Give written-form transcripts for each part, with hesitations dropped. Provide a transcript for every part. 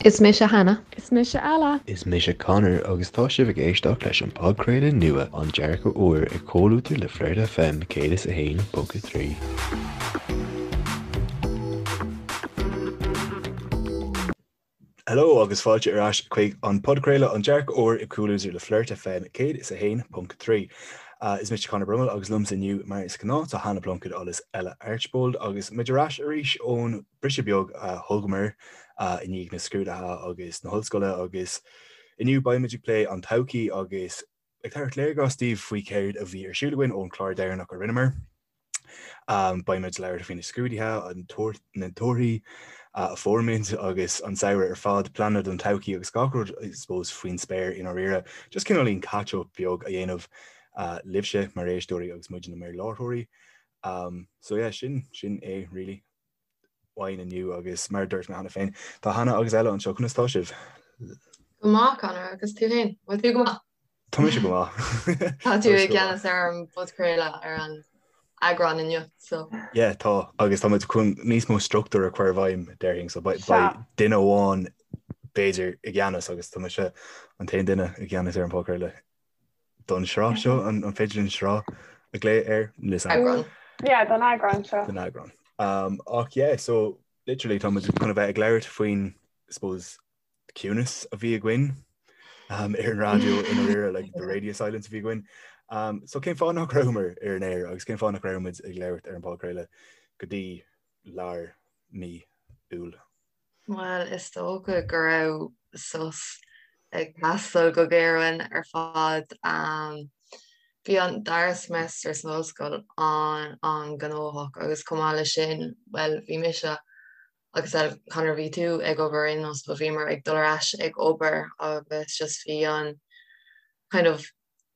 Is mise Hannah. Is mise Ella. Is mise Conor agus tá sibh ag éisteacht leis an podchraoladh nua An Dearcadh Úr i gcomhluadar le Flirt FM 101.3. Hello agus fáilte ar ais chuig an podchraoladh An Dearcadh Úr i gcomhluadar le Flirt FM 101.3. Is mise Conor Brummel agus liomsa inniu mar is gnáth tá Hannah Plunkett agus Ella Archbold agus muid ar ais arís ón briseadh beag a thugamar i ndiaidh na scrúduithe agus na hollscoile agus inniu beidh muid ag plé an todhchaí agus ag tabhairt léargas daoibh faoi céard a bhí ar siúl againn ón chlár deireanach a rinneamar. Beidh muid ag labhairt faoi na scrúduithe, an na torthaí a fuair muid agus an samhradh ar fad, pleananna don todhchaí agus gach rud I suppose faoin spéir i ndáiríre. Just cineáilín catch up beag a dhéanamh libhse mar éisteoirí agus muidne mar láithreoirí. So yeah, sin sin é really. uainn inniu agus mar a dúirt mé cheana féin, tá Hannah agus Ella anseo, conas tá sibh? Go maith, Conor, agus tú féin? Bhfuil tú go maith? Tá mise go maith. Tá tú i gceannas ar an bpodchraoladh ar an eagrán inniu, so. Yeah, tá, agus tá muid chun níos mó struchtúr a chur i bhfeidhm, déarfainn, so beidh duine amháin b'fhéidir i gceannas agus tá mise an t-aon duine i gceannas ar an bpodchraoladh. don sraith seo, an féidir linn sraith a ghlaoch air? Eagrán. Yeah, don eagrán seo. Don eagrán. Um, ach yeah, so literally tá muid chun a bheith ag labhairt faoin, suppose, ciúnas a bhí againn um, ar an raidió i ndáiríre, like the radio silence a bhí againn. Um, so cén fáth nach rabhamar ar an aer agus cén fáth nach raibh muid ag labhairt ar an bpodchraoladh go dtí lár mí Iúil? Bhuel, is dócha go raibh sos ag teastáil go géar uainn ar fad. Bhí an dara semester san ollscoil an-an-ghnóthach agus chomh maith leis sin, bhuel, bhí mise agus Conor, bhí tú ag obair aon nós, but bhíomar ag dul ar ais ag obair agus just bhí an kind of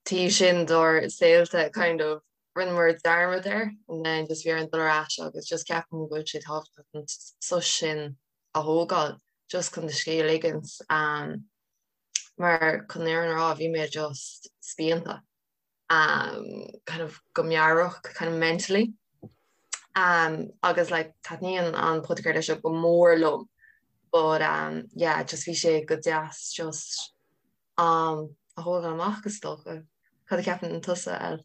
taobh sin dár saolta kind of rinneamar dearmad air and then just bhí orainn dul ar ais agus just ceapaim go bhfuil sé tábhachtach an sos sin a thógáil just chun do scíth a ligint um, mar chun an fhírinne a rá bhí mé just spíonta um, kind of go meabhrach kind of mentally um, agus like taitníonn an podchraoladh seo go mór liom but um, yeah just bhí sé go deas just am a thógáil amach is dócha. Cad a cheapann tusa, El?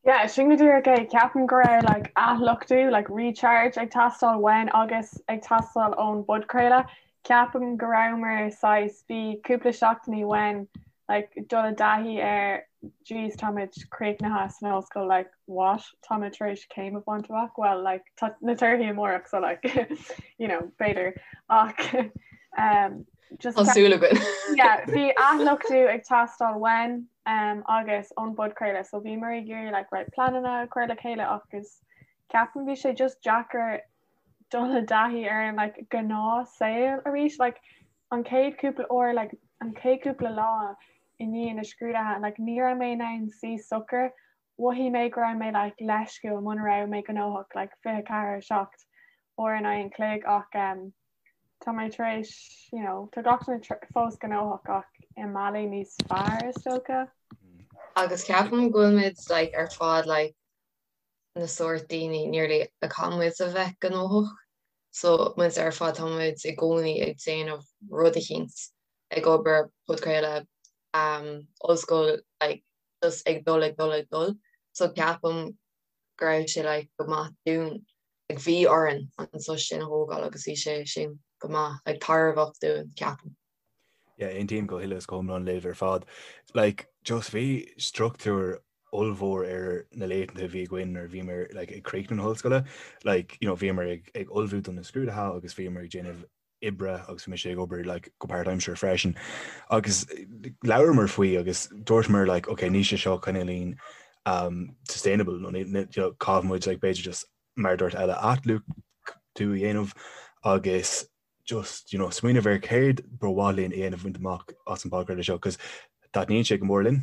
Yeah, sin go díreach é. Ceapaim go raibh like athluchtú, like recharge ag teastáil uainn agus ag teastáil ón bpodchraoladh. Ceapaim go rabhamar saghas, bhí cúpla seachtainí uainn like dul i dtaithí ar jeez táimid críochnaithe san ollscoil like what táimid tar éis céim a bhaint amach well like tá na torthaí amárach so like you know b'fhéidir ach um, Just Tá súil againn. Yeah, bhí athluchtú ag teastáil uainn um, agus ón bpodchraoladh, so bhíomar ag iarraidh like, right, pleananna a chur le chéile agus ceapaim bhí sé just deacair dul i dtaithí ar an like, gnáth saol arís like, an chéad cúpla uair like, an chéad cúpla lá i ndiaidh na scrúduithe like, ní raibh mé in ann suí socair mhothaigh mé go raibh mé like, leisciúil muna raibh mé gnóthach like, 24 7 uair in aghaidh an chloig ach um, Tá mé tar éis, you know, tá gach duine fós gnóthach ach i mbealaí níos fearr is dócha. Agus ceapaim go bhfuil muid like ar fad like na sórt daoine nearly a caithfidh muid a bheith gnóthach. So muid ar fad tá muid i gcónaí ag déanamh rud eicínt, ag obair, podchraoladh, um, ollscoil, like just ag dul ag dul ag dul. So ceapaim go raibh sé like go maith dúinn like bhí orainn an sos sin a thógáil agus bhí sé sin go maith like tairbheach dúinn ceapaim. Yeah, aontaím go huile is go hiomlán libh ar fad. Like just bhí struchtúr ollmhór ar na laethanta a bhí againn nuair a bhíomar like ag críochnú na hollscoile. Like you know bhíomar ag ag ullmhú do na scrúduithe agus bhíomar ag déanamh oibre agus bhí mise ag obair like go páirtaimseartha freisin agus labhramar faoi agus dúirteamar like ok níl sé seo cineáilín um, sustainable nó you know, caithfidh muid like b'fhéidir just mar a dúirt Ella athluchtú a dhéanamh agus just you know, smaoineamh ar céard ba mhaith linn a dhéanamh bhaint amach as an bpodchraoladh seo cos taitníonn sé go mór linn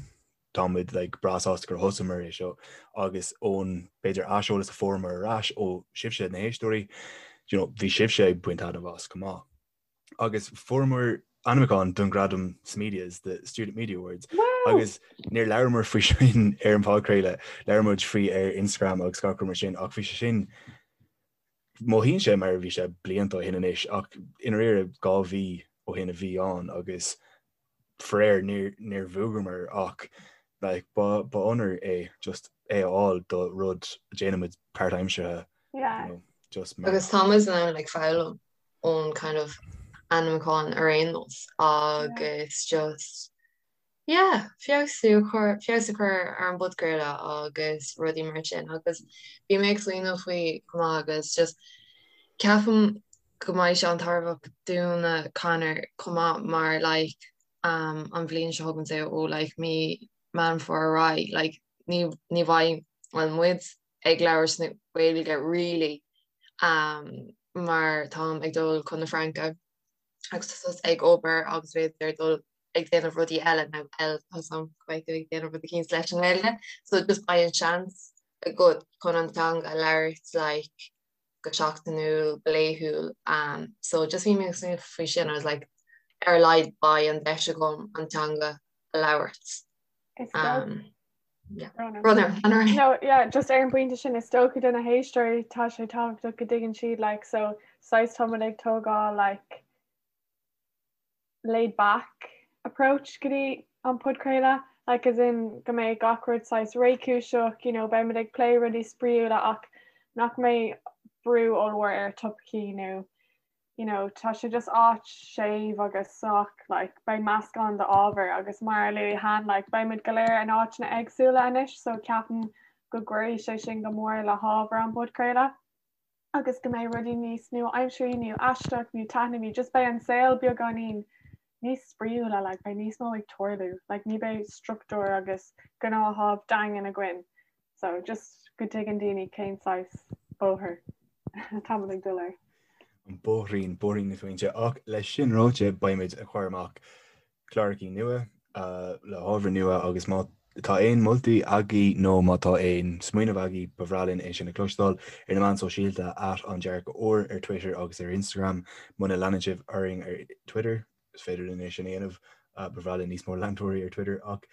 tá muid like breá sásta gur thosaíomar é seo agus ón b'fhéidir aiseolas a fuaireamar ar ais ó sibhse na héisteoirí, you know, bhí sibhse ag baint taitneamh as chomh maith. Agus fuaireamar ainmniúchán don ghradam Smedias, the Student Media Awards, agus níor labhramar faoi sin ar an bpodchraoladh, labhair muid faoi ar Instagram agus gach rud mar sin ach bhí sé sin. Mothaíonn sé mar a bhí sé blianta ó shin anois ach i ndáiríre 2 mhí ó shin a bhí ann agus faraor níor níor bhuamar ach like ba ba onóir é just é a fháil do rud a déanaimid páirtaimseartha Yeah. you know, just mar Agus táimid in ann like foghlaim ón kind of ainmniúchán ar aon nós agus just yeah feabhsú a chur feabhas a chur ar an bpodchraoladh agus rudaí mar sin agus bhí mé ag smaoineamh faoi chomh maith agus just ceapaim go mbeidh sé an-tairbheach dúinne Conor chomh maith mar like um an bhliain seo chugainn say ó like mí Meán Fómhair ar aghaidh like ní ní bheidh well muid ag labhairt na Gaeilge really um mar táim ag dul chun na Fraince agus tá tusa ag obair agus b'fhéidir dul ag déanamh rudaí eile nó eile tá a fhios agam go mbeidh tú ag déanamh rud eicínt leis an nGaeilge so just beidh an seans agat chun an teanga a labhairt like go seachtainiúil go laethúil um so just bhí mé ag smaoineamh faoi sin I was like ar a laghad beidh an deis agam an teanga a labhairt um yeah. No, yeah, just ar an bpointe sin is dócha do na héisteoirí tá sé tábhachtach go dtuigeann siad like so saghas táimid ag tógáil like laid back approach go dtí an podchraoladh like as in go mbeidh gach rud saghas réchúiseach you know beimid ag plé rudaí spraíúla ach nach mbeidh brú ollmhór ar topaicí nó you know tá sé just áit séimh agus sách like beidh meascán d'ábhar agus mar a luaigh Han like beimid go léir in áiteanna éagsúla anois so ceapaim go gcuirfidh sé sin go mór le hábhar an podchraoladh. agus go mbeidh rudaí níos nua-aimseartha nó aisteach nó taitneamhaí, just beidh an saol beagáinín níos spraíúla, like beidh níos mó ag tarlú, like ní beidh struchtúr agus gnáthamh daingean againn. So just go dtuigeann daoine cén saghas bóthar atáimid ag dul air. An bóithrín, bóithrín na smaointe. Ach leis sin ráite, beimid ag cur amach clárachaí nua le hábhar nua agus má tá aon moltaí agaibh nó má tá aon smaoineamh agaibh ba bhreá linn é sin a chloisteáil ar na meáin sóisialta at An Dearcadh Úr ar Twitter agus ar Instagram. Muna leanann sibh orainn ar Twitter is féidir linn é sin a dhéanamh. Ba bhreá linn níos mó leantóirí ar Twitter ach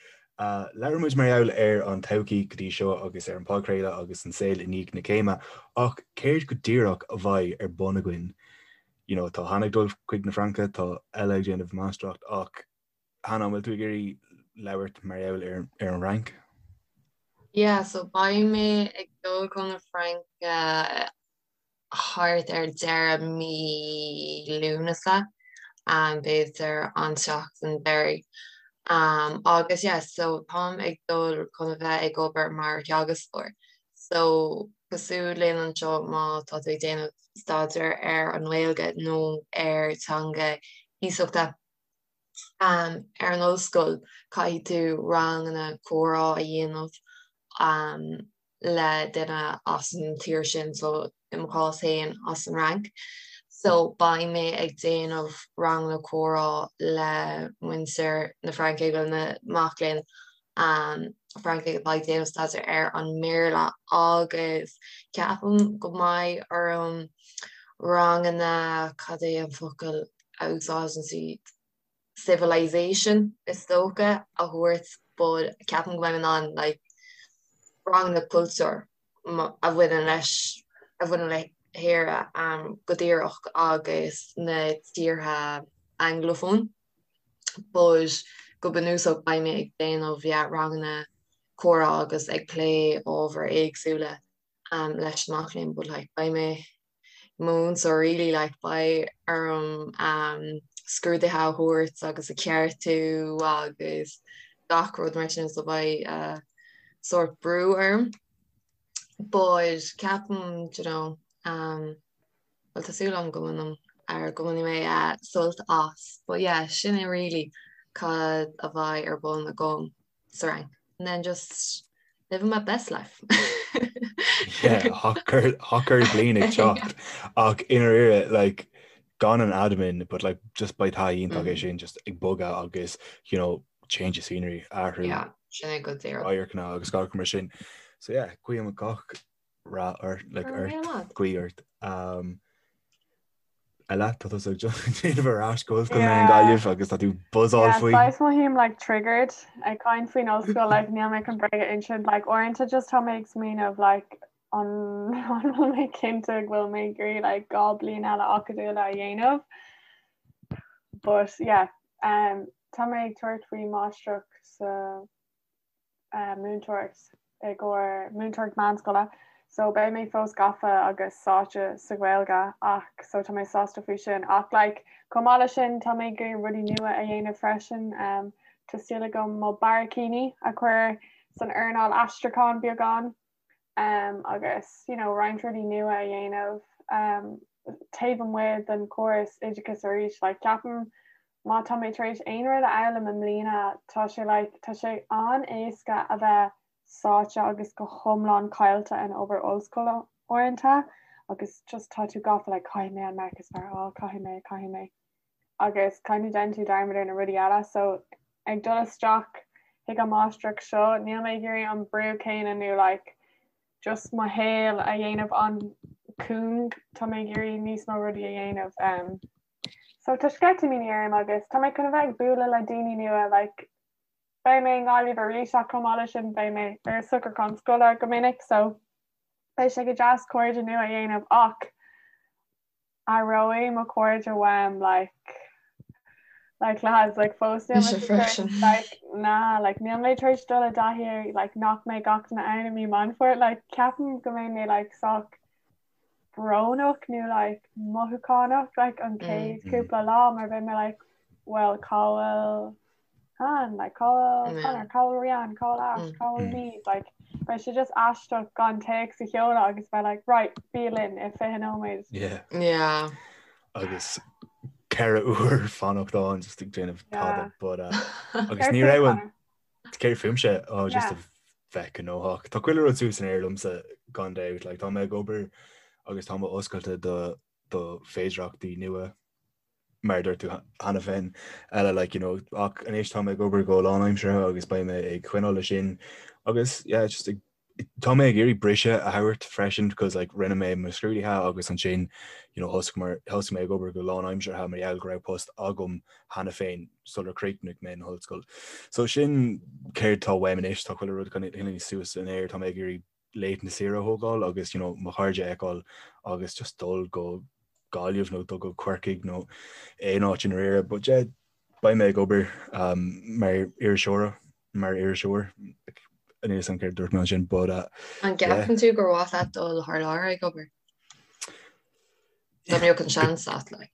labhair muid mar gheall ar an todhchaí go dtí seo agus ar an podchraoladh agus an saol i ndiaidh na céime ach céard go díreach a bheidh ar bun againn you know, tá Hannah ag dul chuig na Fraince, tá Ella ag déanamh máistreacht ach Hannah, an bhfuil tú ag iarraidh labhairt mar gheall ar, ar an Fhrainc? Yeah, so beidh mé ag dul chun na Fraince thart ar deireadh mí Lúnasa, um, b'fhéidir an tseachtain deiridh. Um, agus yeah, so táim ag dul chun a bheith ag obair mar theagascóir. So cosúil linn anseo má tá tú ag déanamh staidéar ar an nGaeilge nó ar teanga iasachta ar an ollscoil, caithfidh tú ranganna comhrá a dhéanamh le duine as an tír sin, so i mo chás féin as an Fhrainc. So beidh mé ag déanamh ranganna comhrá le muintir na Fraince, bhuel na mac léinn Francaigh atá ag déanamh staidéar ar an mBéarla agus ceapaim go mbeidh orm ranganna, cad é an focal a úsáideann siad, civilization is dócha, a thabhairt but ceapaim go mbeidh mé in ann like ranganna cultúir a bhaineann leis, a bhaineann le hÉire go díreach agus na tíortha Anglophone. But go bunúsach beidh mé ag déanamh yeah ranganna comhrá agus ag plé ábhair éagsúla um leis na mac léinn but like beidh mé i mo mhúinteoir really like beidh orm um scrúduithe a thabhairt agus a cheartú agus gach rud mar sin so beidh uh sórt brú orm but ceapaim do you know um Bhuel tá súil agam go mbainim ar go mbainfidh mé sult as. But yeah, sin é really cad a bheidh ar bun agam sa Fhrainc. And then just living my best life. Yeah, hot girl, hot girl bliain ag teacht. Ach i ndáiríre, like, gan an admin, but like, just beidh taithí iontach é sin, just ag bogadh agus, you know, change of scenery, athrú. Yeah, sin é go díreach. Radharcanna agus gach mar sin. So yeah, guím gach rath ort, like, ort, guí ort. Um, Ella, tá tú ag déanamh ar ais go ollscoil na Gaillimh agus tá tú buzzáil faoi. Yeah, saghas mothaím like triggered ag caint faoin ollscoil like níl mé chun bréag a insint like uaireanta just tá mé ag smaoineamh like An bhfuil mé cinnte go bhfuil mé ag iarraidh like 2 bliain eile acadúla a dhéanamh? But yeah, um, tá mé ag tabhairt faoi máistreacht sa uh, múinteoireacht i gcomhair múinteoireacht meánscoile. So beidh mé fós gafa agus sáite sa Ghaeilge ach so tá mé sásta faoi sin. Ach like, chomh maith leis sin tá mé ag iarraidh rudaí nua a dhéanamh freisin. Um, tá súil agam mo barraicíní a chur san earnáil aistriúcháin beagán. um, agus you know, roinnt rudaí nua a dhéanamh um, taobh amuigh den chóras oideachais arís. Like, ceapaim má tá mé tar éis aon rud a fhoghlaim i mbliana tá sé like, tá sé an-éasca a bheith sáite agus go hiomlán caillte in obair ollscoile uaireanta agus just tá tú gafa like, caithfidh mé an marc is fearr a fháil, caithfidh mé, caithfidh mé. agus kind of déanann tú dearmad ar na rudaí eile so ag dul isteach chuig an máistreacht seo níl mé ag iarraidh an brú céanna nó like just mo shaol a dhéanamh an-chúng tá mé ag iarraidh níos mó rudaí a dhéanamh um, so tá sceitimíní orm agus tá mé chun a bheith ag bualadh le daoine nua like beidh mé i nGaillimh arís ach chomh maith leis sin beidh mé ar socrúchán scoile go minic so beidh sé go deas cairde nua a dhéanamh ach Aireoidh mo chairde uaim like like lads like fós níl mé freisin like na like níl mé tar éis dul i dtaithí ar like nach mbeidh gach duine ann i mí Meán Fómhair like ceapaim go mbeidh mé like sách brónach nó like mothúchánach like an chéad cúpla lá mar beidh mé like well cá bhfuil Han, like cá bhfuil Conor, cá bhfuil Rian, cá bhfuil Ash, cá bhfuil Niamh, like beidh sé just aisteach gan téacs a sheoladh agus bheith like right, bí linn i 20 nóiméad. Yeah. Yeah. Agus 4 uair fanacht ann just ag déanamh tada but uh, agus ní raibh an céard fúmse oh, just a bheith gnóthach. Tá chuile rud suas san aer liomsa gan dabht, like tá mé ag obair agus tá mé oscailte do do féidireachtaí nua mar a dúirt tú cheana féin, eile like you know ach anois tá mé ag obair go lánaimseartha agus beidh mé ag coinneáil leis sin agus yeah just ag tá mé ag iarraidh briseadh a thabhairt freisin because like rinne mé mo scrúduithe agus ansin you know thosaigh mar thosaigh mé ag obair go lánaimseartha mar gheall go raibh post agam cheana féin sular chríochnaigh mé an ollscoil. So sin céard tá uaim anois tá chuile rud kind of suas in air tá mé ag iarraidh laethanta saoire a thógáil agus you know mo chairde a fheiceáil agus just dul go Gaillimh nó dul go Corcaigh nó aon áit i ndáiríre. But yeah, beidh mé ag obair um, mar iriseoir mar iriseoir níl a fhios agam céard dúirt mé ansin but uh, An gceapann tú gur mhaith leat dul thar lear ag obair? Dá mbeadh an seans agat like.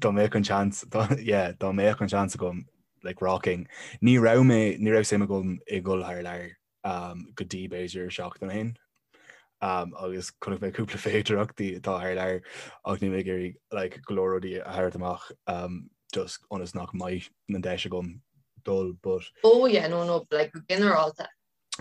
Dá mbeadh an seans yeah, dá mbeadh an seans agam like rocking. Ní raibh mé ní raibh suim agam i dhul thar lear go dtí b'fhéidir seachtain ó shin agus chonaic mé cúpla féidireachtaí atá thar lear ach níl mé ag iarraidh like, go leor rudaí a thabhairt amach um, just ionas nach mbeidh an deis agam dul but Oh yeah, no, no, like, go ginearálta.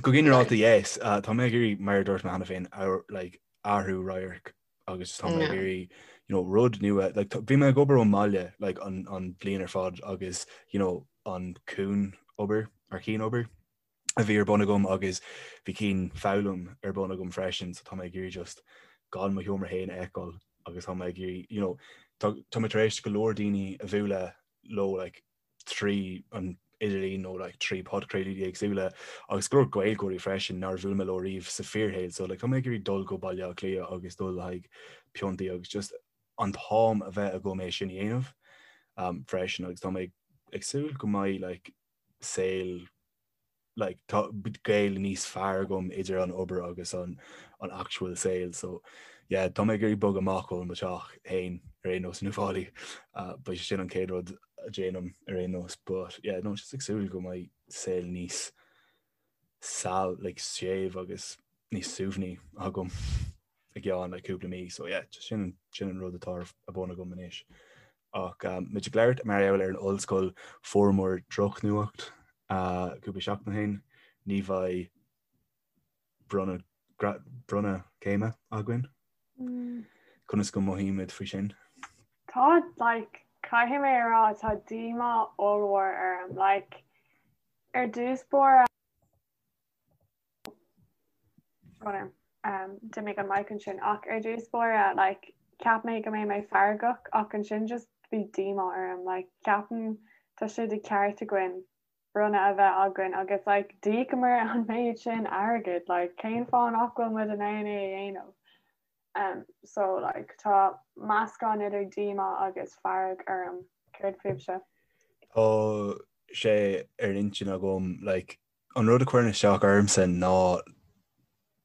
Go ginearálta, yes. Uh, tá mé ag iarraidh mar a dúirt mé cheana féin like, athrú radhairc agus tá mé ag iarraidh you know, rud nua like, bhí mé ag obair ón mbaile like, an, an bhliain ar fad agus you know, an cian obair ar cian obair a bhí ar bun agam agus bhí cian foghlaim ar bun agam freisin so tá mé ag iarraidh just gan mo sheomra féin a fheiceáil agus tá mé ag iarraidh you know tá tá mé tar éis go leor daoine a bhualadh leo like trí an idirlíon nó like trí podchraoltaí éagsúla agus go leor Gaeilgeoirí freisin nár bhuail mé leo riamh sa fíorshaol so like tá mé ag iarraidh dul go Baile Átha Cliath agus dul le haghaidh piontaí agus just an t-am a bheith agam é sin a dhéanamh um, freisin agus tá mé ag súil go mbeidh like saol like tá gaol níos fearr agam idir an obair agus an an actual saol so yeah tá mé ag iarraidh bogadh amach ó mo teach féin ar aon nós in Uíbh Fhailí uh, beidh sé sin an chéad rud a déanaim ar aon nós but yeah no just ag súil go mbeidh saol níos sal like séimh agus níos suaimhní agam i gceann like cúpla mí so yeah just sin sin an rud atá ar bun agam anois. Ach um, muid ag labhairt mar gheall ar an ollscoil fuaireamar drochnuacht uh, cúpla seachtain ó shin ní bheidh bronnadh bronnadh céime againn. Mm. Conas go mothaímid faoi sin? Tá like caithfidh mé a rá tá díomá ollmhór orm like ar dtús báire D'imigh an mic ansin ach ar dtús báire like cheap mé go mbeidh mé feargach ach ansin just bhí díomá orm like ceapaim tá sé de cheart againn. bronnadh a bheith againn agus like d'íocamar an méid sin airgid like cén fáth nach bhfuil muid in ann é a dhéanamh? Um, so like tá meascán idir díomá agus fearg orm. Céard fúibhse? Tá sé ar an intinn agam like an rud a chuireann isteach ormsa ná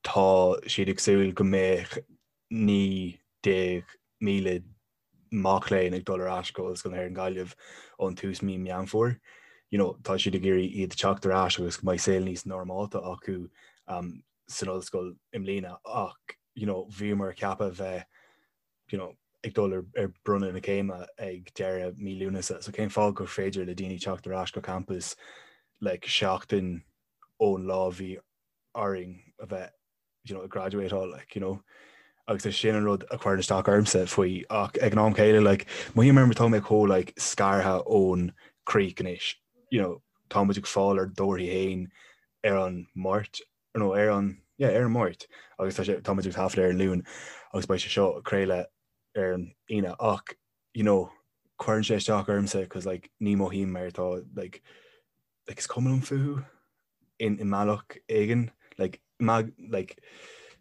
tá siad ag súil go mbeadh 19,000 mac léinn ag dul ar ais go Ollscoil na hÉireann Gaillimh ón tús mí Meán Fómhair. You know, tá siad ag iarraidh iad teacht ar ais agus go mbeidh saol níos normálta acu um, san ollscoil i mbliana ach you know, bhíomar ceaptha bheith you know, ag dul ar, ar bronnadh na céime ag deireadh mí Lúnasa. So cén fáth gur féidir le daoine teacht ar ais go campus like, seachtain ón lá bhí orainn a bheith you know, ag graduateáil, like, you know. Agus is sin an rud a chuireann isteach ormsa faoi ach ag an am céile, like, mothaím mar tá mé chomh like, scartha ón craic anois, you know, tá muid ag fáil ár dtorthaí féin ar an Máirt, nó ar an, yeah, ar an Máirt, agus tá sé, tá muid ag taifead ar an Luan agus beidh sé seo ag craoladh ar an Aoine ach, you know, cuireann sé isteach ormsa cos like, ní mothaím mar tá like, like is cuma liom fúthu in i mbealach éigin like mag like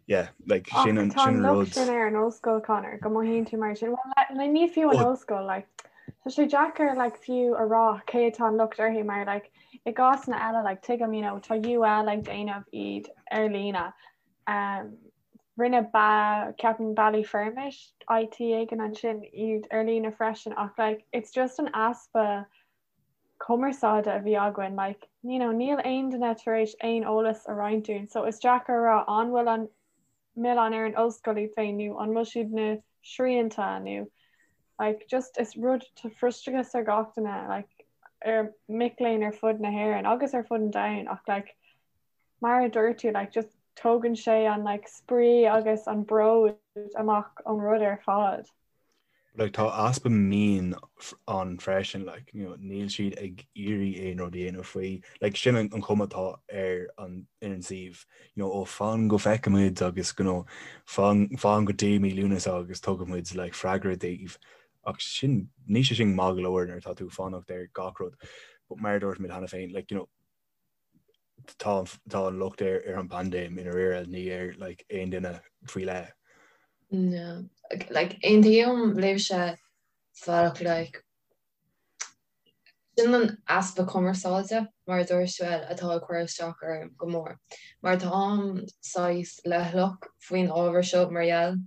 yeah like sin an sin an rud. sin ar an ollscoil Conor go mothaíonn tú mar sin well le ní fiú an ollscoil like tá sé deacair like fiú a rá cé atá an locht orthu mar like i gcásanna eile like tuigim you know tá UL ag déanamh iad ar líne um, rinne ba ceapaim Ballyfermot IT éigin ansin iad ar líne freisin ach like it's just an easpa cumarsáide a bhí againn like you know níl aon duine tar éis aon eolas a roinnt dúinn so is deacair a rá an bhfuil an milleán ar an ollscoil iad féin nó an bhfuil siad na srianta nó like just is rud tá frustrachas ar gach duine like ar mic léinn ar fud na hÉireann agus ar fud an domhain ach like mar a dúirt tú like just tógann sé an like spraoi agus an bród amach ón rud ar fad. Like tá easpa mionn ann freisin like you know níl siad ag iarraidh aon rud a dhéanamh faoi like sin an chuma atá ar an ar an suíomh you know ó fan go bhfeicfimid agus you know fan fan go dtí mí Lúnasa agus tugfaimid like freagra daoibh ach sin níl sé sin maith go leor nuair atá tú ag fanacht ar gach rud but mar a dúirt muid cheana féin like you know tá tá an locht ar ar an bpaindéim i ndáiríre ní ar like aon duine faoi leith. No. Like aontaím libhse sa bhealach like sin an easpa cumarsáide mar a dúirt tú atá ag cur isteach orm go mór. Mar táim saghas leithleach faoin ábhar seo mar gheall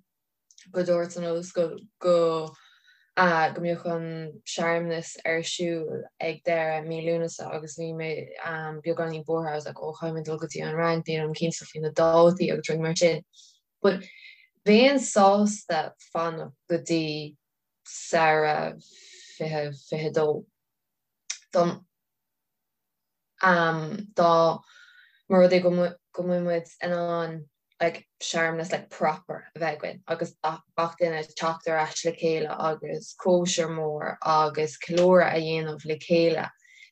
go dúirt an ollscoil go go mbeadh an searmanas ar siúl ag deireadh mí Lúnasa agus bhí mé beagáinín buartha, I was like oh caithfidh mé dul go dtí an Fhrainc, nílim cinnte faoi na dátaí agus rudaí mar sin. But bheinn sásta fanacht go dtí samhradh 2022 don dá mba rud é go mbeidh muid in ann like searmanas like proper a bheith againn agus gach duine teacht ar ais le chéile agus cóisir mór agus ceiliúradh a dhéanamh le chéile.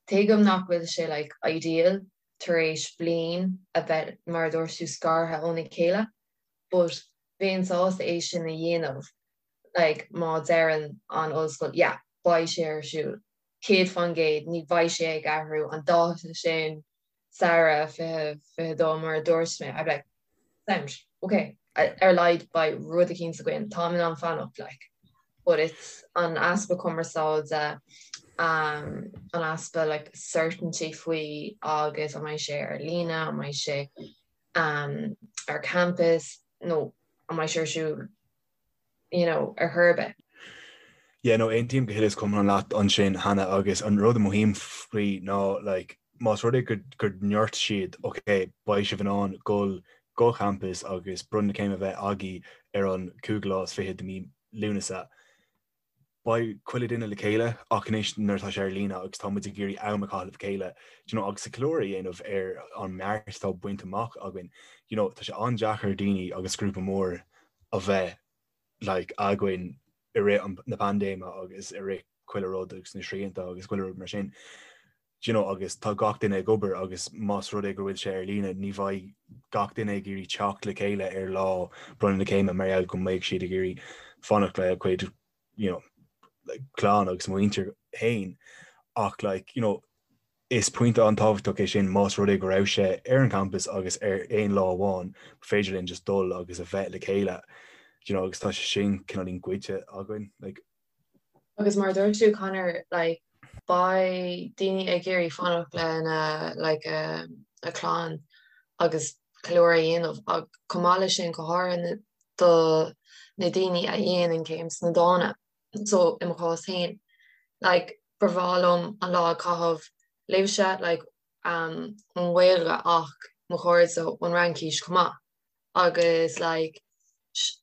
Tuigim nach bhfuil sé like ideal tar éis bliain a bheith mar a dúirt tú scartha óna chéile but bheinn sásta é sin a dhéanamh like má deireann an ollscoil yeah beidh sé ar siúl 100% ní bheidh sé ag athrú an dáta sin samhradh 2022 mar a dúirt mé I'd be like sound ok ar a laghad beidh rud eicínt againn táim in ann fanacht like but it's an easpa cumarsáide um, an easpa like certainty faoi agus an mbeidh sé ar líne an mbeidh sé um, ar campus nó an mbeidh sé ar siúl you know, ar chor ar bith. Yeah, no, aontaím go huile is go hiomlán leat ansin, Hannah, agus an rud a mothaím faoi ná, like, más rud é go, go ndúirt siad, ok, beidh sibh in ann dul go campus agus bronnadh na céime a bheith agaibh ar an cúigiú lá is fichead de mí Lúnasa, beidh chuile duine le chéile ach anois nuair atá sé ar líne agus tá muid ag iarraidh am a chaitheamh le chéile, do you know, agus ceiliúradh a dhéanamh ar an mbeart atá bainte amach againn, you know, tá sé an-deacair daoine agus grúpa mór a bheith like againn i rith an na paindéime agus i rith chuile rud agus na srianta agus chuile rud mar sin. Do you know, agus tá gach duine ag obair agus más rud é go bhfuil sé ar líne ní bheidh gach duine ag iarraidh teacht le chéile ar lá bronnadh na céime mar gheall go mbeidh siad ag iarraidh fanacht le cuid you know, like, clann agus muintir féin ach like, you know, Is pointe an-tábhachtach é sin más rud é go raibh sé ar an champas agus ar aon lá amháin ba féidir linn just dul agus a bheith le chéile you know agus tá sé sin cineáilín goidte againn like. Agus mar a dúirt tú Conor like beidh daoine ag iarraidh fanacht lena like a a clann agus ceiliúradh a dhéanamh ach chomh maith leis sin go háirithe do na daoine a dhéanann céim sna dána. So i mo chás féin like ba bhreá liom an lá a chaitheamh libhse like um ón nGaeilge ach mo chairde ón Fhraincis chomh maith agus like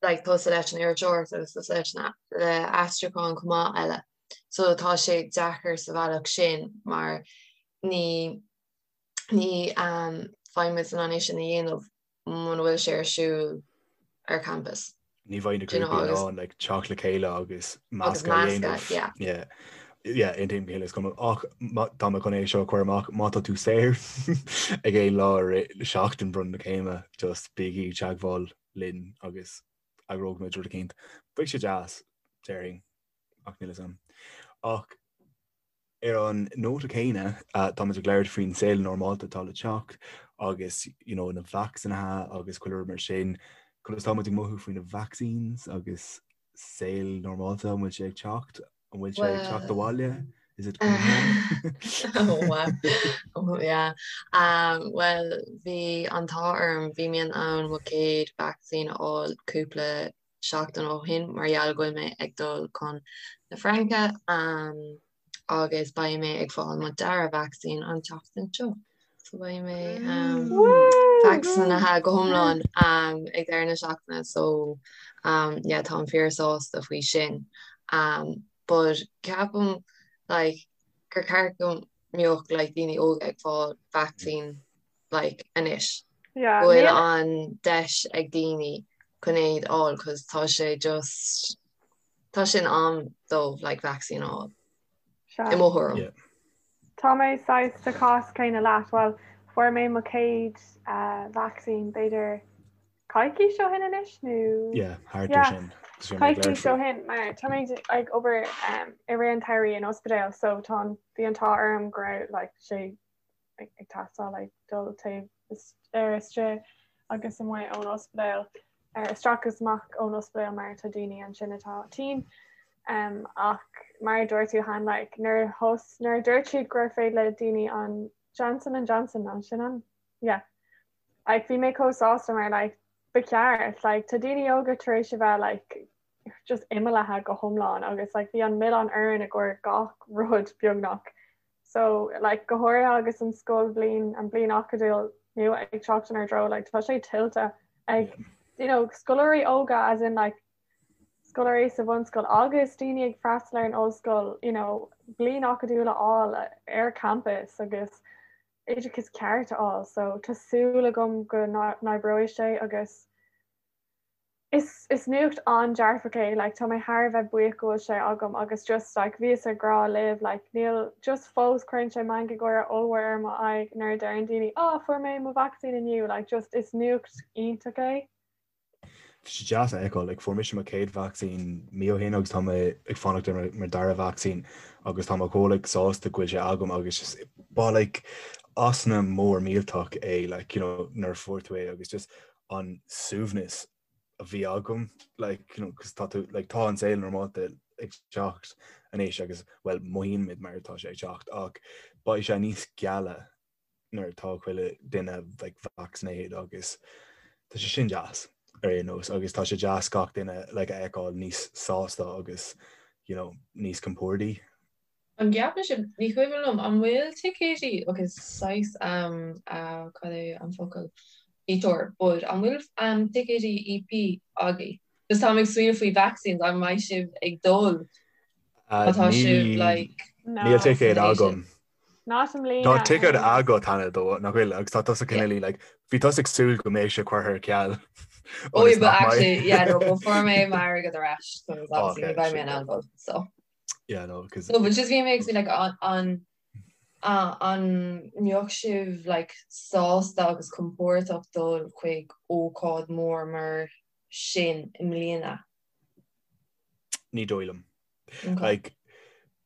like tusa leis an iriseoireacht agus tusa leis an le aistriúchán chomh maith eile. So tá sé deacair sa bhealach sin mar ní ní um bheidh muid in ann é sin a dhéanamh muna bhfuil sé ar siúl ar campus. Ní bheidh na grúpaí in ann like, teacht le chéile agus meascadh a dhéanamh. Yeah. Yeah. Yeah, aontaím go huile is go hiomlán. Ach tá mé chun é seo a chur amach, má tá tú saor ag aon lá i rith seachtain bronnadh na céime, just bígí i dteagmháil linn agus eagróidh muid rud eicínt. Beidh sé deas, déarfainn, ach níl a fhios agam. Ach Ar an nóta céanna, táimid ag labhairt faoin saol normálta atá le teacht agus you know na vacsaínithe agus chuile rud mar sin. Conas tá muid ag mothú faoi na vaccines agus saol normálta, an bhfuil sé ag teacht? An bhfuil sé ag teacht abhaile? Is it coming home? Oh wow. Oh yeah. Um, well, bhí an t-ádh orm, bhí mé in ann mo chéad vacsaín a fháil cúpla seachtain ó shin mar gheall go bhfuil mé ag dul chun na Fraince agus beidh mé ag fáil mo dara vacsaín an tseachtain seo. So beidh mé vacsaínithe go hiomlán ag deireadh na seachtaine so yeah táim fíor sásta faoi sin. But ceapaim like gur ceart go mbeadh like daoine óga ag fáil vacsaín like anois. Yeah, Go bhfuil an deis ag daoine chun é a fháil cos tá sé just tá sé in am dóibh like vaccine a fháil. Sea. I mo thuairim. Yeah. Tá mé saghas sa chás céanna leat, bhuel fuair mé mo chéad uh, vaccine b'fhéidir coicís ó shin anois nó Yeah, thart ar Yeah. sin. Is bhí mé ag coicís labhairt ó faoi. shin mar tá mé ag obair um, i rith an tsamhraidh in ospidéal so tá an bhí an t-ádh orm go raibh like, sé ag teastáil like dul taobh ar istigh agus amuigh ón ospidéal, ar isteach agus amach ón ospidéal mar tá daoine ansin atá tinn. Um, ach mar a dúirt tú cheana like, nuair thos nuair a dúirt siad gur féidir le daoine an Johnson and Johnson an sin an yeah. Like, bhí mé chomh sásta mar like, ba cheart like, tá daoine óga tar éis a bheith like, just imeallaithe go hiomlán agus like, bhí an milleán orainn i gcomhair gach rud beagnach So, like, go háirithe agus an scoilbhliain, an bliain acadúil nua ag teacht inár dtreo, like, tá sé tuillte ag, you know, scoláirí óga as in, like, scoláirí sa bhunscoil agus daoine ag freastal ar an ollscoil, you know, bliain acadúil a fháil ar campus agus oideachas ceart a fháil. So, tá súil agam go n-oibreoidh sé agus Is is nuacht an-dearfach é like tá mé thar a bheith buíoch go bhfuil sé agam agus just like bhíos ag rá libh like níl just fós cuireann sé meangadh gáire ollmhór ar mo aghaidh nuair a deireann daoine ah fuair mé mo vacsaín inniu like just is nuacht iontach é. Tá sé deas a fheiceáil, like fuair mise mo chéad vacsaín mí ó shin agus tá mé ag fanacht ar mo dara vacsaín agus tá mé chomh like sásta go bhfuil sé agam agus just ba like osna mór millteach é like you know nuair a fuair tú é agus just an suaimhneas a bhí agam like you know cos tá tú like tá an saol normálta ag teacht anois agus well mothaíonn muid mar atá sé ag teacht ach beidh sé níos geala nuair atá chuile duine like vaccinated agus tá sé sin deas ar aon nós agus tá sé deas gach duine like a fheiceáil níos sásta agus you know níos compordaí. An gceapann sibh, ní cuimhin liom, an bhfuil ticéidí, ok saghas um cad é an focal, detour, but an bhfuil um ticéidí EP agaibh? Just táim ag smaoineamh faoi vaccines, an mbeidh sibh ag dul má tá sibh like Níl ticéad agam. Not i mbliana. Tá ticéad agat cheana though, nach bhfuil, agus tá tusa cineál like, bhí tusa ag súil go mbeadh sé curtha ar ceal. Oh yeah, but actually, yeah, no, but fuair mé m'airgead ar ais, so obviously ní bheidh mé in ann dul, so. Yeah, no, cause... No, but just bhí mé ag like an an an mbeadh sibh like sásta agus compordach dul chuig ócáid mór mar sin i mbliana? Ní dóigh liom. Okay. Like,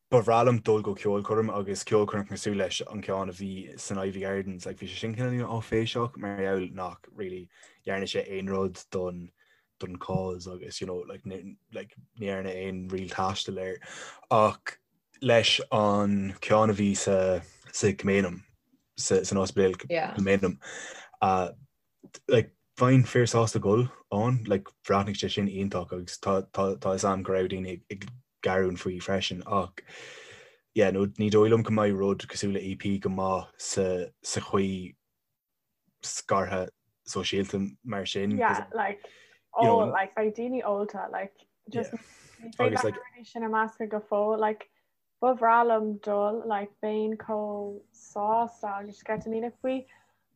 Ba bhreá liom dul go ceolchoirm agus ceolchoirm cosúil leis an ceann a bhí san Iveagh Gardens, like bhí sé sin cineál áiféiseach mar gheall nach really dhearna sé aon rud don don cause agus you know like ní like ní dhearna aon real taisteal air ach leis an ceann a bhí sa sa Kilmainham sa san ospidéal Yeah. Kilmainham uh, like bheinn fíor sásta dul ann like bhreathnaigh sé sin iontach agus tá tá tá fhios a'm go raibh daoine ag ag gearán faoi freisin ach yeah no ní dóigh liom go mbeidh rud cosúil le EP go maith sa sa chaoi scartha sóisialta mar sin Yeah like you know oh like beidh daoine ólta like just yeah ní féidir agus like na rudaí sin a meascadh go fóill like Ba bhreá liom dul, like, bheinn chomh sásta agus sceitimíneach faoi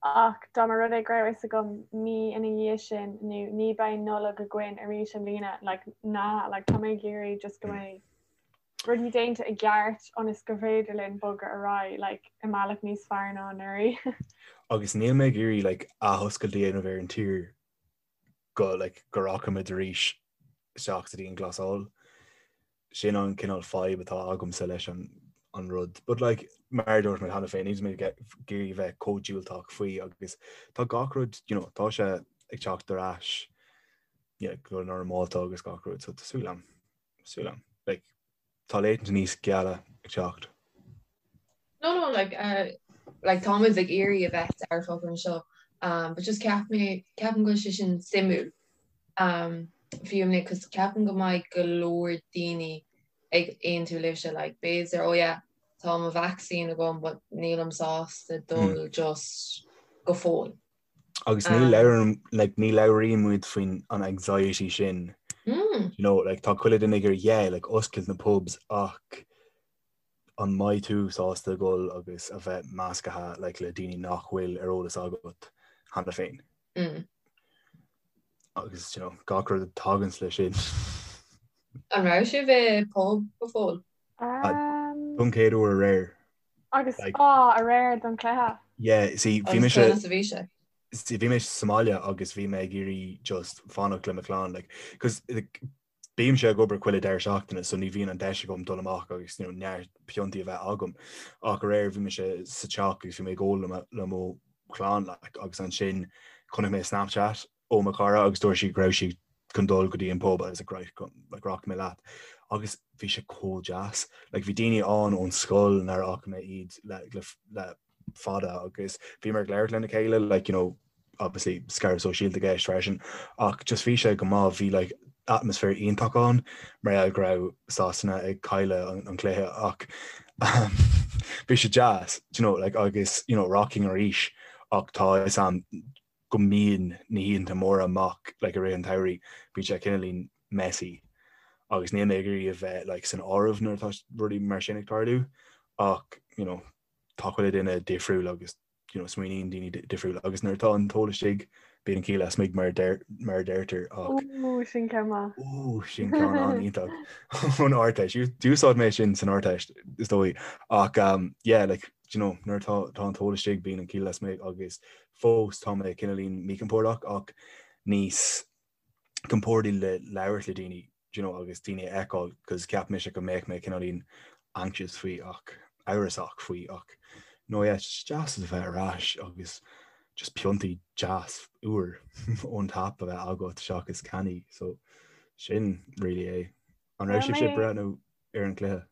ach dá mba rud é go raibh fhios agam mí ina dhiaidh sin nó ní beidh Nollaig againn arís i mbliana, like, nah, like, tá mé ag iarraidh just go mbeidh rudaí déanta i gceart ionas gur féidir linn bogadh ar aghaidh, like, i mbealach níos fearr ná anuraidh. Agus níl mé ag iarraidh, like, athoscailt a dhéanamh ar an tír go like go rachaimid arís isteach sa dianghlasáil. Sin an cineál fadhb atá agamsa leis an an rud. But like mar a dúirt mé cheana féin, níl mé ag iarraidh bheith chomh diúltach faoi agus tá gach rud, you know, tá sé ag teacht ar ais yeah, go normálta agus gach rud, so tá súil agam, súil agam. Like, Tá laethanta níos geala ag teacht. No, no, like, uh, like táimid ag iarraidh a bheith dearfach anseo, um, but just ceap mé, ceapaim go bhfuil sé sin suimiúil, um, fiú mé, cos ceapaim go mbeidh go leor daoine ag aontú libhse, like, b'fhéidir, oh yeah, tá mo vaccine agam, but nílim sásta dul just go fóill. Agus ní labhraíonn like, ní labhraíonn muid faoin an anxiety sin. Mm. You know, like, tá chuile duine ag iarraidh yeah, like, oscailt na pubs ach an mbeidh tú sásta dul agus a bheith measctha like, le daoine nach bhfuil ar eolas agat cheana féin. Mm. Agus you know, gach rud a taganns leis sin. An raibh sibh i pub go fóill? Um, Don chéad uair aréir. Agus á, aréir don chluiche. Yeah, see, bhí mise Agus a bhí sé. See, bhí mé sa mbaile agus bhí mé ag iarraidh just fanacht le mo chlann, like, cos like, bímse ag obair chuile deireadh seachtaine, so ní bhíonn an deis agam dul amach agus you know, neart piontaí a bheith agam. Ach aréir bhí mise sa teach agus bhí mé ag ól le mo, le mo chlann, like, agus ansin chonaic mé Snapchat ó mo chara agus dúirt sí go raibh sí chun dul go dtí an pub agus like, right, like, rachaidh mé leat. Agus bhí sé chomh deas. Like, bhí daoine ann ón scoil nár fhaca mé iad le, le, le fada agus bhíomar ag labhairt lena chéile, like, you know, obviously scaradh sóisialta i gceist freisin, ach just bhí sé go maith, bhí like, atmaisféar iontach ann mar gheall go raibh Sasana ag cailleadh an, an cluiche ach um, bhí sé deas, you know, like, agus you know, rachainn arís ach tá fhios a'm go mbíonn na hoícheanta móra amach like i rith an tsamhraidh, bíonn sé cineáilín messy agus níl mé ag iarraidh a bheith like san áireamh nuair atá rudaí mar sin ag tarlú ach you know tá chuile duine difriúil agus you know smaoiníonn daoine difriúil agus nuair atá an t-ól istigh bíonn an ciall lasmuigh mar a deir mar a deirtear ach Ooh, sin ceann maith. Ooh, sin ceann an-iontach ón Ardteist. D'úsáid mé sin san Ardteist is dóigh ach um, yeah, like, you know, nuair atá tá an t-ól istigh bíonn an ciall lasmuigh agus Fós tá mé cineáilín míchompordach ach níos compordaí le labhairt le daoine do you know agus daoine a fheiceáil cos cheap mise go mbeadh mé cineáilín anxious faoi ach amhrasach faoi ach no yeah it's deas a bheith ar ais agus just piontaí deas úr ón tap a bheith agat seachas cannaí so sin really é. An raibh sibhse ag breathnú ar an gcluiche?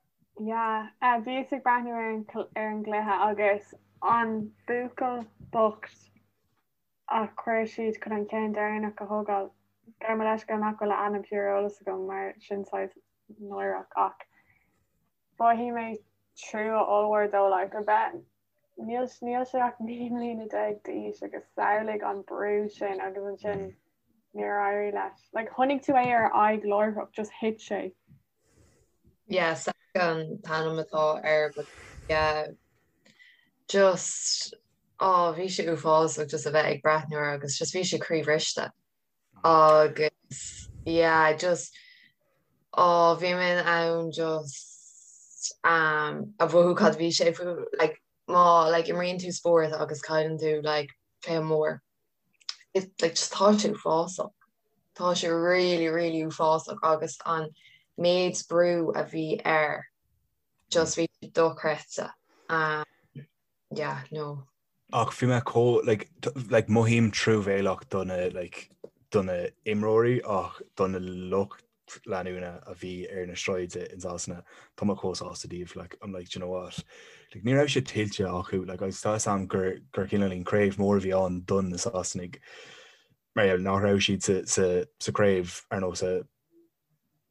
Yeah, bhíos ag breathnú ar an ar an gcluiche agus an buachaill bocht a chuir siad chun an ceann deireanach a thógáil, gabh mo leithscéal nach bhfuil a ainm ar eolas agam mar sin saghas náireach ach mhothaigh mé trua ollmhór dó like a bheith níl níl sé ach 19 mbliana d'aois agus samhlaigh an brú sin agus ansin níor éirigh leis. Like chonaic tú é ar a aghaidh láithreach, just thit sé. Yeah, Saka an t-ainm atá air but yeah just oh bhí sé uafásach just a bheith ag breathnú air agus just bhí sé croíbhriste agus yeah just oh bhí mé in ann just um a mhothú cad bhí sé faoi like má like imríonn tú spórt agus cailleann tú like cluiche mór it like just tá sé uafásach. Tá sé really really uafásach agus an méid brú a bhí air. Just bhí sé dochreidte. Um, yeah, no. Ach bhí mé chomh like, like mothaím truamhéalach do na like, do na imreoirí ach do na lucht leanúna a bhí ar na sráide in Sasana tá mé chomh sásta díobh like, I'm like, do you know what? Like, ní raibh sé tuillte acu like, agus tá a fhios agam gur gur cineáilín craobh mór a bhí ann don na Sasanaigh mar gheall nach raibh siad sa, sa, sa craobh ar nós a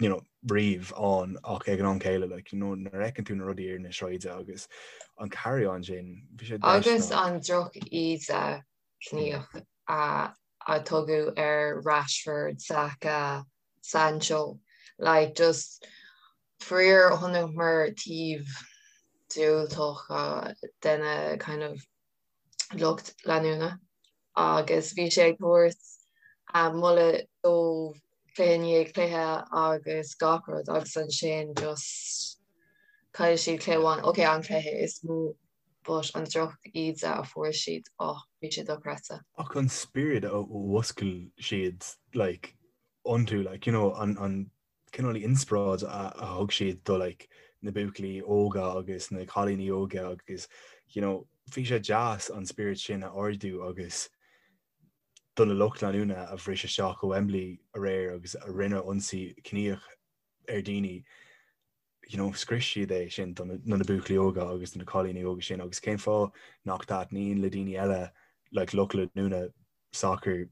you know, riamh ann ach ag an am céile like, you know, nuair a fheiceann tú na rudaí ar na sráide agus an carry on sin, bhí sé Agus an droch-íde ciníoch a a tugadh ar Rashford, Saka, Sancho, like just faraor chonaiceamar taobh diúltach de na kind of lucht leanúna agus bhí sé ag tabhairt moladh dóibh cluiche i ndiaidh cluiche agus gach rud agus ansin just chaill siad cluiche amháin, ok an cluiche is mó but an droch-íde a fuair siad, oh bhí sé dochreidte. Ach an spiorad a mhuscail siad like iontu like you know an an cineál inspioráid a thug siad do like na buachaillí óga agus na cailíní óga agus you know bhí sé deas an spiorad sin a ardú agus do na lucht leanúna a bhris isteach go Wembley aréir agus a rinne ionsaí ciníoch ar daoine you know scrios siad é sin do na na buachaillí óga agus do na cailíní óga sin agus cén fáth nach dtaitníonn le daoine eile like lucht leanúna sacair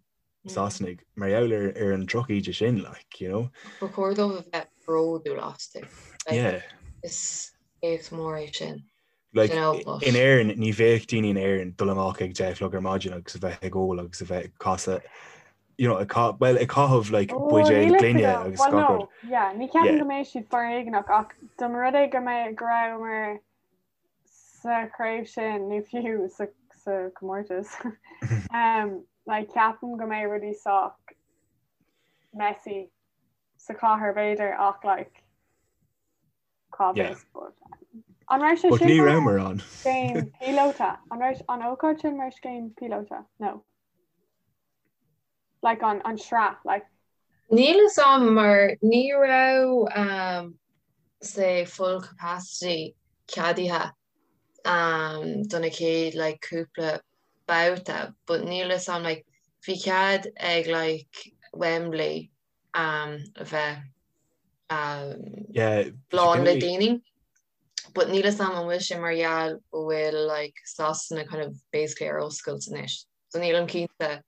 Sasanaigh mar gheall ar ar an drochíde sin like you know. Ba chóir dóibh a bheith bródúil astu. Like, yeah. Is éacht mór é sin. Like, you know, but... In Éirinn ní bheadh daoine in Éirinn dul amach ag 10 a chlog ar maidin agus a bheith ag ól agus a bheith ag casadh you know, ag well, ag caitheamh like, oh, buidéil gloine agus well, no. yeah, ní ceapaim go mbeidh siad foréigneach ach dá mba rud é go mbeidh go rabhamar sa chraobh sin nó fiú sa, sa comórtas um, like, ceapaim go mbeidh rudaí sách messy sa chathair b'fhéidir ach like, cá bhfios but an raibh sé sin ní rabhamar ann. Scéim píolóta an raibh an ócáid sin mar scéim píolóta? No. Like an an sraith like. Níl fhios a'm mar ní raibh um, say full capacity ceadaithe um, do na chéad like cúpla babhta but níl fhios a'm like bhí cead ag like Wembley um, a bheith um, yeah, lán le daoine. But níl fhios a'm an bhfuil sé mar gheall go bhfuil like Sasana kind of basically ar oscailt anois. So nílim cinnte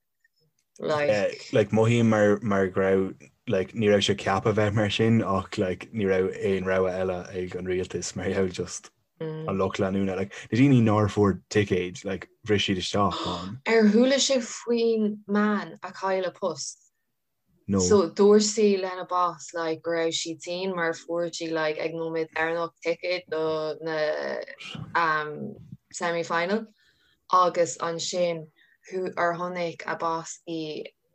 like yeah, like mothaím mar mar go raibh like ní raibh sé ceaptha bheith mar sin ach like ní raibh aon rogha eile ag an rialtas mar gheall just mm. an lucht leanúna like na daoine nár fuair ticéid like bhris siad isteach ann. Ar chuala sibh faoin mbean a chaill a post? No. So dúirt sí lena boss like go raibh sí tinn mar fuair sí like ag nóiméad deireanach ticéad do na um, semi-final agus ansin hu ar chonaic a boss í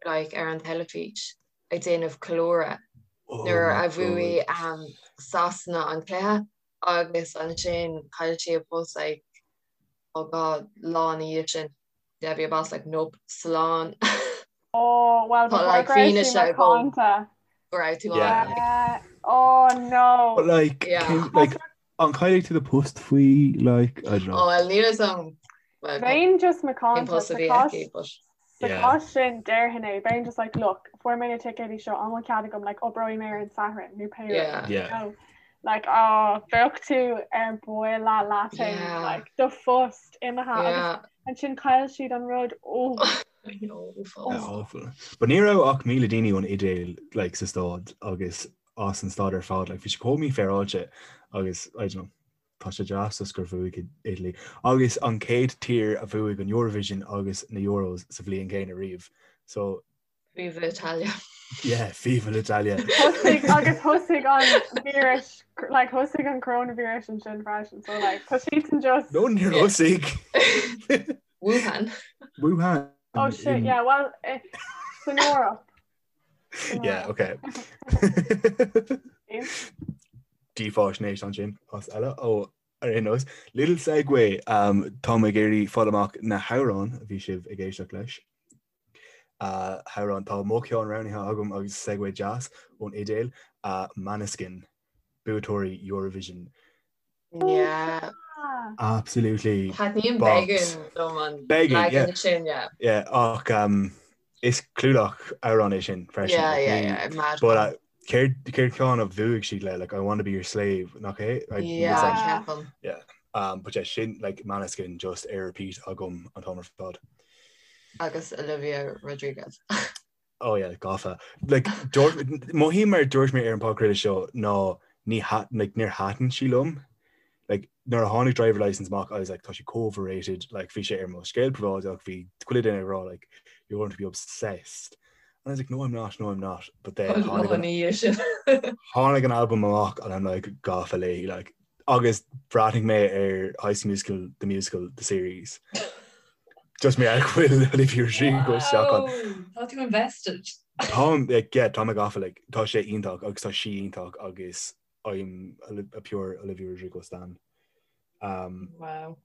like ar an teilifís ag déanamh ceiliúradh oh nuair a bhuaigh um, Sasana an cluiche agus ansin chaill sí a post like oh god lá ina dhiaidh sin. Yeah, bhí a boss like nope, slán. Oh, well, Tá like fianaise agam go raibh tú ann. Yeah. Oh no. But like, Yeah. cén- like an caillfidh tú do post faoi like I don't know. Oh well, níl fhios a'm. Well, Bheinn just cén macánta post a sa bhí chás aici, but sa Yeah. chás sin déarfainn é. Bheinn just like look, fuair mé na ticéidí seo an bhfuil cead agam like oibreoidh mé ar an Satharn nó pé rud. yeah. Yeah. No. Like oh, bheadh tú ar buile leat Yeah. like do phost imithe agus Yeah. Ansin chaill siad an rud ó. I know, Yeah, uafás. awful. But ní raibh ach 1,000 daoine ón Iodáil like, sa staid agus as an staid ar fad. Like, bhí sé chomh mífhéaráilte agus I don't know, tá sé deas just gur bhuaigh Italy. Agus an chéad tír a bhuaigh an Eurovision agus na Euros sa bhliain chéanna riamh. So Viva Italia. Yeah, viva l'Italia. Thosaigh agus thosaigh an víreas like thosaigh an coronavirus ansin freisin so like tá siadsan just No níor thosaigh. Wuhan. Wuhan. Oh shit, in- yeah, well eh, san Eoraip. San Yeah, Eoraip. okay. Dífháisnéis ansin as eile ó ar aon nós. Little segue, um, tá mé ag iarraidh fáil amach na hamhráin a bhí sibh ag éisteacht leis. Hamhrán, tá mo cheann roghnaithe agam agus segue deas ón Iodáil, Måneskin, buaiteoirí Eurovision. Yeah. Absolutely. Taitníonn Beggin liom an Beggin, yeah. leagan sin, yeah. Yeah, ach um, is clúdach amhrán é sin freisin. Yeah, like, yeah, ní- yeah, mad But one. uh, céard céard ceann a bhuaigh siad le like I want to be your slave nach é? I- Yeah, it's like, ceapaim. um, but yeah, sin like Maneskin just ar repeat agam an t-am ar fad. Agus Olivia Rodriguez. Oh yeah, gafa. Like, dúirt- mothaím mar dúirt mé ar an podchraoladh seo ná ní ha- like, níor thaitin sí liom. Like, nuair a tháinig Driver Licence amach, I was like, tá sí chomh overrated. Like, bhí sé ar mo scéal príobháideach, bhí chuile duine ag rá, like, you're going to be obsessed. And I was like, no, I'm not, no, I'm not. But then tháinig an, Ní sin. tháinig an album amach and I'm like, gafa léi, like, agus bhreathnaigh mé ar High School Musical, the musical, the series. Just mar go bhfuil Olivia Rodrigo isteach ann. Wow, Tá tú invested. Táim, like, yeah, tá mé gafa, like, tá sé iontach agus tá sí iontach agus I'm a, a pure Olivia Rodrigo stan. Um, Wow.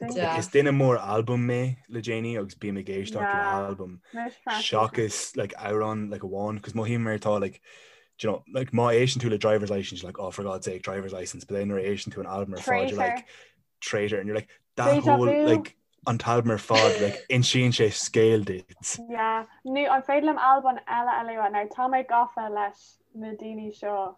like, is duine mór album mé le déanaí agus bím ag éisteacht le Yeah. album Mise freisin. seachas like amhrán like amháin cos mothaím mar tá like do you know, like má éisteann tú le driver's license you're like oh for God's sake driver's license but then nuair a éisteann tú an album ar fad you're Traitor. like traitor and you're like that Deja whole vu. like an t-album ar fad like insíonn sé scéal duit. Yeah. Nó an féidir liom albam eile a lua now tá mé gafa leis na daoine seo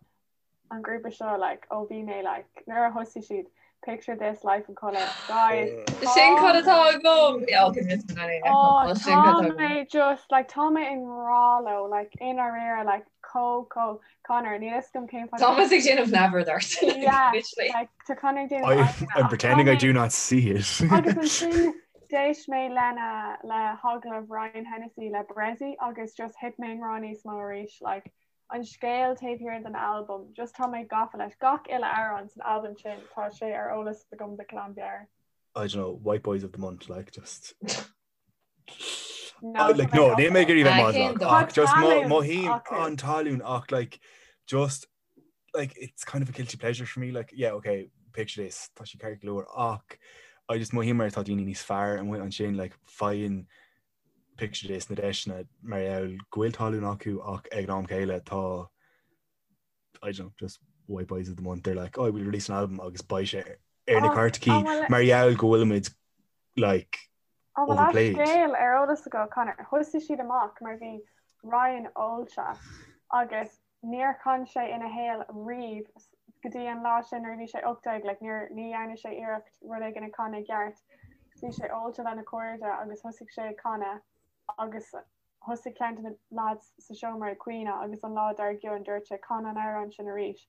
an grúpa seo like ó bhí mé like nuair a thosaigh siad picture this life in colour guys Sin cad atá agam! Yeah, okay, miss me anyway. Oh, Well, sin cad tá atá agam. mé just like tá mé i ngrá leo like i ndáiríre like chomh chomh Conor níl a fhios agam cén fáth Thomas ag déanamh neamhaird ort. Yeah. Literally. like tá Conor ag déanamh I, aghaidheanna, I'm ach pretending tá I mé- do not see it. Agus ansin d'éist mé lena le hagallamh Ryan Hennessy le Bressie agus just thit mé i ngrá níos mó arís like an scéal taobh thiar den albam just tá mé gafa leis gach uile amhrán san albam sin tá sé ar eolas agam de ghlanmheabhair. I don't know, white boys of the month, like just No, Oh, like no, níl mé ag iarraidh bheith Ah, cén maslach dóigh? ach just Tá talún mothaím acu. an talún ach like just like it's kind of a guilty pleasure for me like yeah okay picture this tá sé ceart go leor ach I just mothaím mar tá daoine níos fearr amuigh ansin like faigheann picture this na deiseanna mar gheall go bhfuil talún acu ach ag an am céile tá I don't know just white boys of the month they're like oh we'll release an album agus beidh sé ar na Oh, cairteacha oh, well, mar gheall go bhfuilimid like An bhfuil an overplayed. scéal ar eolas agat Conor? Thosaigh siad amach mar bhí Ryan ólta agus níor chan sé ina shaol riamh go dtí an lá sin nuair a bhí sé 18, like níor ní dhearna sé iarracht rud éigin a chanadh i gceart. Bhí sé ólta lena chairde agus thosaigh sé ag canadh agus thosaigh ceann de na lads sa seomra ag caoineadh agus an lá dár gcionn dúirt sé can an amhrán sin arís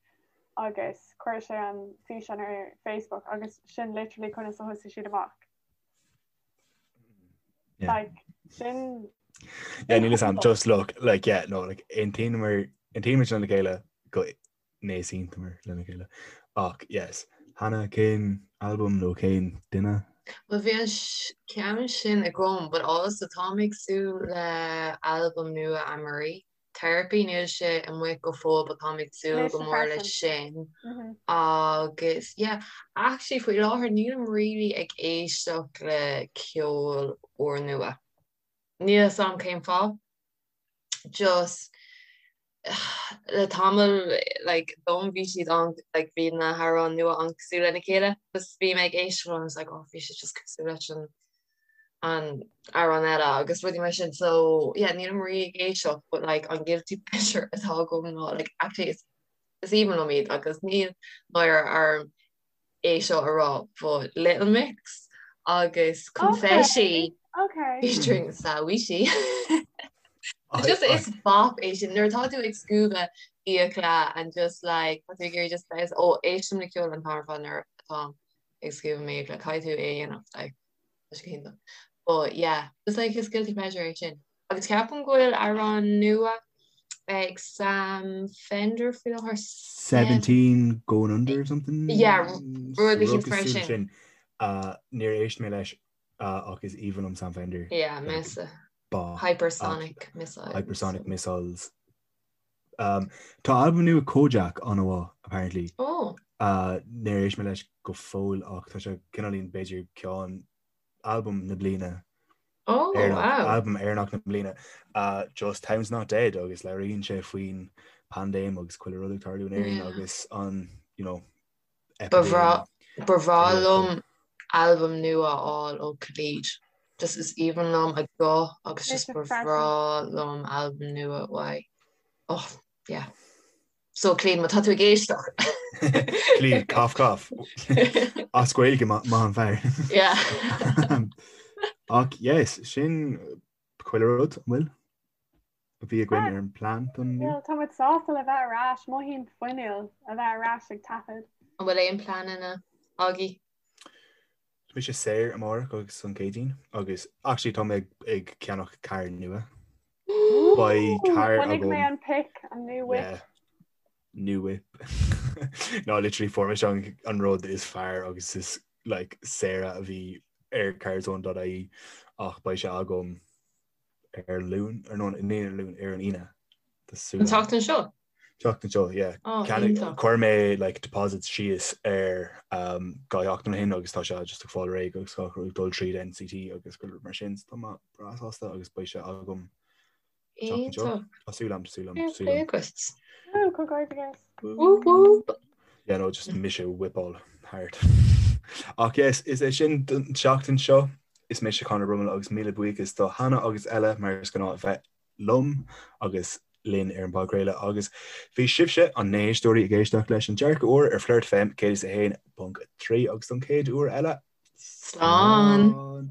agus chuir sé an físeán ar Facebook agus sin literally conas a thosaigh siad amach. Yeah. Like sin Yeah, níl a fhios agam just look like yeah no like aontaíomar aontaímid lena chéile go n-easaontaíomar lena chéile ach yes Hannah cén albam nó cén duine? Well bhí an ceann sin agam but also táim ag súil le albam nua Anne-Marie. Therapy níl sé amuigh go fóill but táim ag súil Mise go mór leis freisin. sin Mhm. agus yeah actually faoi láthair nílim really ag éisteacht le ceol úrnua. Níl a fhios agam cén fáth. Just le tamall like dom bhí siad an like bhí na hamhráin nua an-cosúil lena chéile just bhí mé ag éisteacht leo and I was like oh bhí sé just cosúil leis an an amhrán eile agus rudaí mar sin so yeah nílim really ag éisteacht but like an guilty pleasure atá agam ná like actually is is aoibhinn liom iad agus níl náire orm é seo a rá but Little Mix agus Confetti Okay. featuring Sawushi Just is bop é sin nuair atá tú ag scuabadh fiacla and just like tá tú ag iarraidh just bheith ó éistim le ceol an t-am ar fad nuair atá ag scuabadh m'fhiacla caithfidh tú é a dhéanamh like Tá sé go hiontach. But yeah, just like is guilty pleasure é sin. Agus ceapaim go bhfuil amhrán nua ag Sam Fender faoi láthair. 17 going under or something? Yeah, rud eicínt Rud mar cosúil sin. sin. Uh, níor éist mé leis uh, ach is aoibhinn liom Sam Fender. Yeah, Like, mise. ba. Hypersonic missiles. Hypersonic missiles. Um, tá albam nua Kojaque an-mhaith, apparently. Oh. Uh, níor éist mé leis go fóill ach tá sé cineáilín b'fhéidir ceann albam na bliana. Oh, Éireannach, wow. albam Éireannach na bliana. Uh, just Town's Not Dead agus labhraíonn sé faoin paindéim agus chuile rud ag tarlú in Éirinn Yeah. agus an, you know, Ba bhreá epidéim. Ba bhreá liom albam nua a fháil ó Khalid. Just is aoibhinn liom a ghuth agus just ba bhreá liom albam nua uaidh. Oh, yeah. So Khalid, má tá tú ag éisteacht. Khalid, cough cough. As Gaeilge maith an fear. Yeah. Ach yes, sin chuile rud, an bhfuil? A bhí againn ar an plean don inniu. Tá muid sásta le bheith ar ais, mothaím fuinniúil a bheith ar ais ag taifead. An bhfuil aon pleananna agaibh? Tá mise saor amárach agus an Céadaoin agus actually tá mé ag ceannach carr nua. Beidh carr agam. Chonaic mé an pic, an new whip. Yeah. New whip. No, literally fuair mise an, an rud is fearr agus is like saoire a bhí ar carzone.ie ach beidh sé agam ar Luan, ar nó ní ar Luan, ar an Aoine. Tá súil An agam. tseachtain seo? Tseachtain seo, yeah. Oh, Ceannaigh- iontach. Chuir mé like deposit síos ar um, dhá sheachtain ó shin agus tá sé just ag fáil réidh agus gach rud ag dul tríd NCT agus go mar sin so tá mé breá sásta agus beidh sé agam tseachtain seo. Iontach. Tá súil agam, súil agam, Fair súil play agam. agat. Ooh, comhghairdeas. Whoop whoop. Yeah, no, just mise whipáil thart. Ach yes, is é sin don tseachtain seo. Is mise Conor Brummel agus míle buíochas do Hannah agus Ella mar is gnáth a bheith liom agus linn ar an bpodchraoladh agus bhí sibhse an na héisteoirí ag éisteacht leis an Dearcadh Úr ar Flirt FM 101.3 agus don chéad uair eile, Slán! Slán!